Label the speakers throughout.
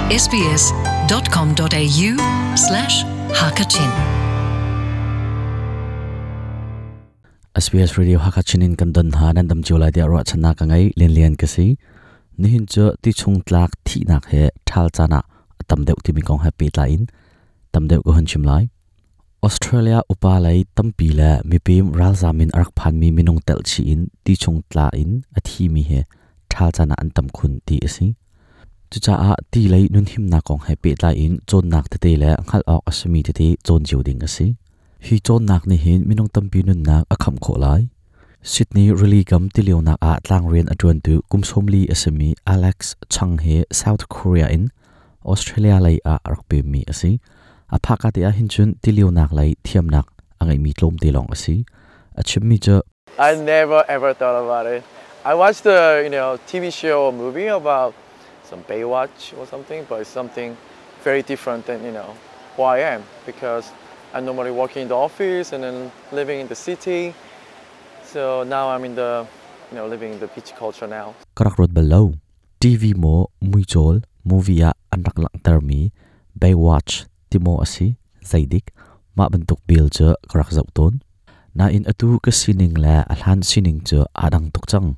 Speaker 1: sbs.com.au slash hakachin
Speaker 2: SBS Radio Hakachin in kan don ha nan dam cio lai tiah ruahchannak ka ngei Lian Lian ka si. Nihin cu ti chung tlak thihnak he ṭhal caan ah a tam deuh timi kong he pehtlai in tam deuh ka hun chim lai. Australia upa lei tampi le mipim ralzam in a rak phanmi minung telh chih in ti chung tla in a thimi he ṭhal caan ah an tam khun ti a si. Cucaah ti lei nunhimnak kong he pehtlai in cawnnak tete le hngalh awk a simi tete cawn cio ding a si. Hi cawnnak nih hin minung tampi nunnak a khamh khawh lai. Sydney rili kam tilionak ah tlangrian a ṭuantu kum 40 a simi Alex Chang hi South Korea in Australia lei ah a rak pemmi a si. A phaka te ah hin cun tilionak lei thiamnak a ngeimi tlawmte lawng a si. A chimmi cu
Speaker 3: I never ever thought about it. I watched the TV show or movie about some Baywatch or something, but it's something very different than who I am because I'm normally working in the office and then living in the city. So now I'm in the living in the beach culture now.
Speaker 2: Ka rak ruat bal lo. TV maw muicawl movie ah an rak langhtermi Baywatch ti maw a si zeidik mah bantuk bil cu ka rak zoh tawn. Nain atu ka sining le a hlan sining cu aa dang tuk cang.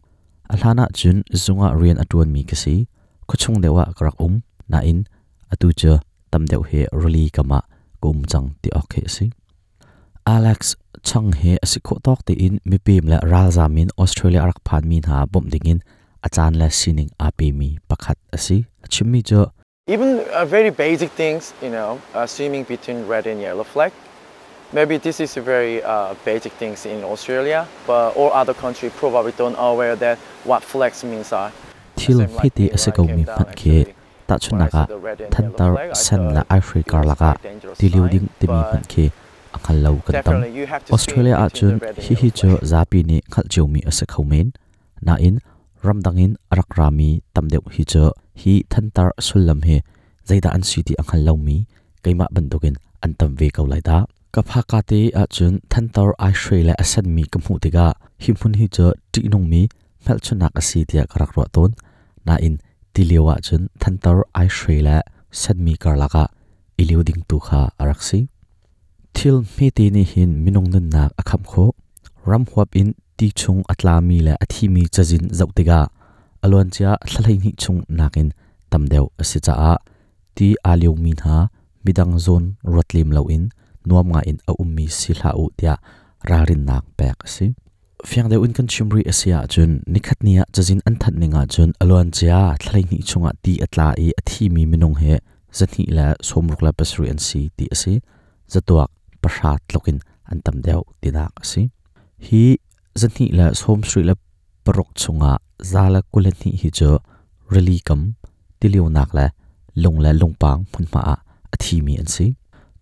Speaker 2: A hlan ahcun zung ah rian a ṭuanmi ka si. Khuachung deuh ah ka rak um. Nain atu cu tam deuh hi rili kam ah ka um cang ti awk khi a si. Alex Chang hi a si khawh tawk tein mipem le ralzam in Australia a rak phanmi hna bawmh dingin a caan le sining aa pemi pakhat a si. A chimmi cu
Speaker 3: Even very basic things, swimming between red and yellow flag. Maybe this is a very basic things in Australia, but all other country probably don't aware that what flags means are.
Speaker 2: Thil hmete a si komi hmanh khi Tahchunhnak ah, thantar sen le aihre karlak ah tilio ding timi hmanh khi a hngal lo kan tam. Australia ahcun hihi cu zapi nih hngalh ciomi a si kho men. Nain, ramdang in a rak rami tam deuh hi cu hi thantar sullam hi zeidah an si ti a hngal lomi keimah bantukin an tam ve ko lai dah. Ka phaka te ahcun thantar aihre le a senmi ka hmuh tikah hi hmun hi cu ṭihnungmi hmelchunhnak a si tiah ka rak ruah tawn. Nain tilio ahcun thantar aihre le senmi karlak ah i lio ding tu kha a rak si. Thil hmete nih hin minung nunnak a khamh khawh. Ram huap in ti chung a tlami le a thimi cazin zoh tikah a luancia thla 12 chung nakin tam deuh a si caah ti aa liomi hna midang zawn ruat lem loin nuam ngaiin a ummi si hlah u tiah ralrinnak pek a si. Fiang deuh in kan chim rih a si ahcun nikhat ni ah cazin an thanh ning ahcun a luancia thla 12 chungah ti a tla i a thimi minung hi 267 an si ti a si. Zatuak 0 tluk in an tam deuh tinak a si. Hi 276 chungah 122 hi cu rili kam tilionak le lung le lungpang hmunhma ah a thimi an si.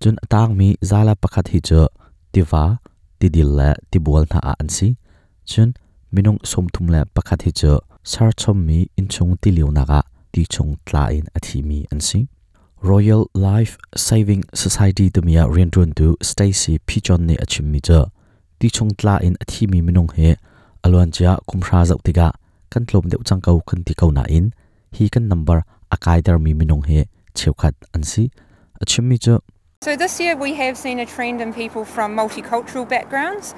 Speaker 2: Cun a tangmi 101 hi cu tiva, tidil le tibual hna ah an si. Cun minung 31 hi cu serchommi innchung tilionak ah ti chung tla in a thimi an si. Royal Life Saving Society timi ah rianṭuantu Stacy Pichon nih a chimmi cu ti chung tla in a thimi minung hi a luancia kum hra zoh tikah kan tlawm deuh cang ko kan ti ko nain hi kan number a kaitermi minung hi cheukhat an si. A chimmi cu
Speaker 4: So this year we have seen a trend in people from multicultural backgrounds,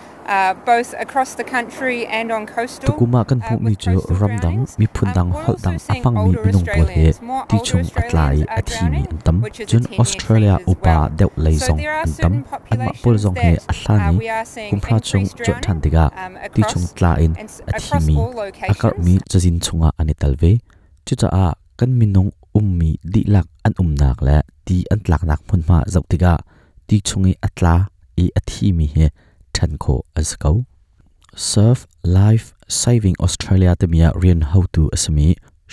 Speaker 4: both across the country and on coastal.
Speaker 2: Tukum ah kan hmuhmi cu ramdang, miphun dang, holh dang a hmangmi minung pawl hi ti chung a tla i a thimi an tam. Cun Australia upa deuh lei zong an tam. Anmah pawl zong hi a hlan i kumhra chung cuanh ṭhan tikah ti chung tla in a thimi, a karhmi cazin chungah an i tel ve. Cucaah kan minung ummi dihlak an umnak le ti an tlaknak hmunhma zoh tikah ti chung i a tla i a thimi hi ṭhen khawh an si ko. Surf Life Saving Australia timi ah rian hotu a simi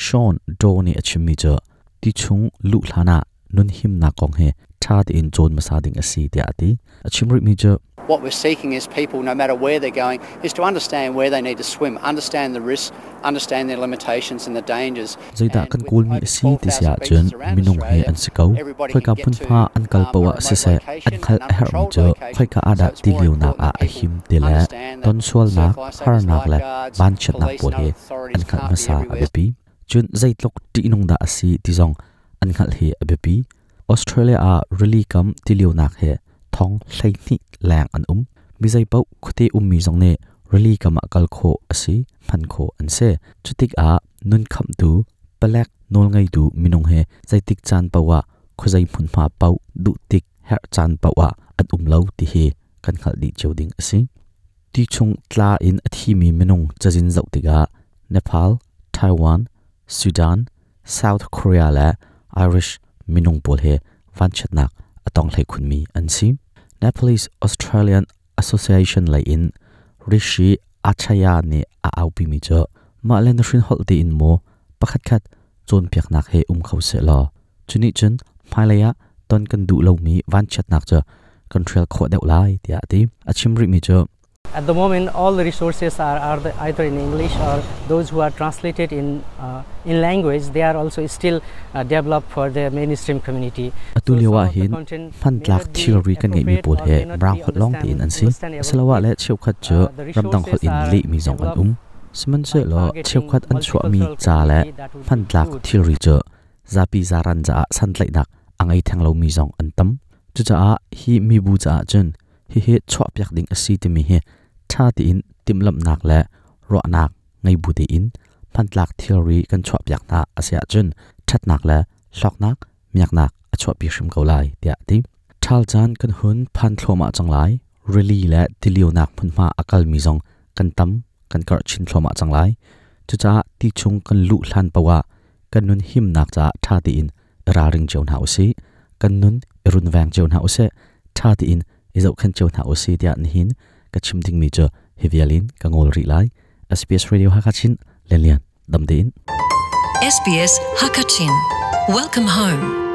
Speaker 2: Sean Doe nih a chimmi cu ti chung luh hlan ah nunhimnak kong hi ṭha tein cawn hmasa ding a si tiah a ti. A chim rihmi cu
Speaker 5: What we're seeking is people, no matter where they're going, is to understand where they need to swim, understand the risks, understand their limitations and the dangers.
Speaker 2: Zeidah kan kawlmi a si ti si ahcun minung he an si ko. Khoika hmunhma an kal paoh ah siseh an hngalh a herhmi cu khoika ah dah tilionak ah a him ti le tonsualnak, harnak le vanchiatnak pawl hi an hngalh hmasa a biapi. Cun zeitluk ṭihnung dah a si ti zong an hngalh hi a biapi. Australia ah rili kam tilionak he thong 12 leng an um. Mi zeipaoh khuate ummi zong nih rili kam ah kal khawh a si, hman khawh an si. Cutik ah nun khamhtu palek nawlngeitu minung he zeitik caan paoh ah khuazei hmunhma paoh duh tik herh caan paoh ah an um lo ti hi kan hngalh dih cio ding a si. Ti chung tla in a thimi minung cazin zoh tikah Nepal, Taiwan, Sudan, South Korea le Irish minung pawl he vanchiatnak a tong hlei khunmi an si. Nepalese Australian Association lei in Rishi Achaya nih a aupimi cu mah le na hrin holh tiin maw pakhatkhat cawnpiaknak he um kho seh law cu nih cun hmailei ah ton kan duh lomi vanchiatnak cu kan hrial khawh deuh lai tiah a ti. A chim rihmi cu
Speaker 6: At the moment, all the resources are either in English or those who are translated in language, they are also still developed for the mainstream community.
Speaker 2: Atu lio ah hin hmantlak thilri kan ngeihmi pawl hi Mirang holh lawng tein an si. Asiloah le cheukhat cu ramdang holh in lehmi zong an um. Sihmanhsehlaw cheukhat an chuahmi ca le hmantlak thilri cu zapi zaran caah santlaihnak a ngei theng lomi zong an tam. Cucaah hi mibu caah cun hihi chuahpiak ding a si timi hi ṭha tein timhlamhnak le ruahnak ngei bu tein hmantlak thilri kan chuahpiak hna a si ahcun ṭhatnak le hlawknak miaknak a chuahpi hrim ko lai tiah a ti. Ṭhal caan kan hun phan thluahmah cang lai. Rili le tilionak hmunhma a kalmi zong kan tam kan karh chin thluahmah cang lai. Cucaah ti chung kan luh hlan paoh ah kan nun himnak caah ṭha tein i ralring cio hna usih. Kan nun i runveng cio hna usih. Ṭha tein i zohkhenh cio hna usih tiah nihin ka chim dingmi cu hi vial in ka ngawl rih lai. SBS Radio Hakha Chin Lian Lian dam tein.
Speaker 1: SBS Hakachin. Welcome home.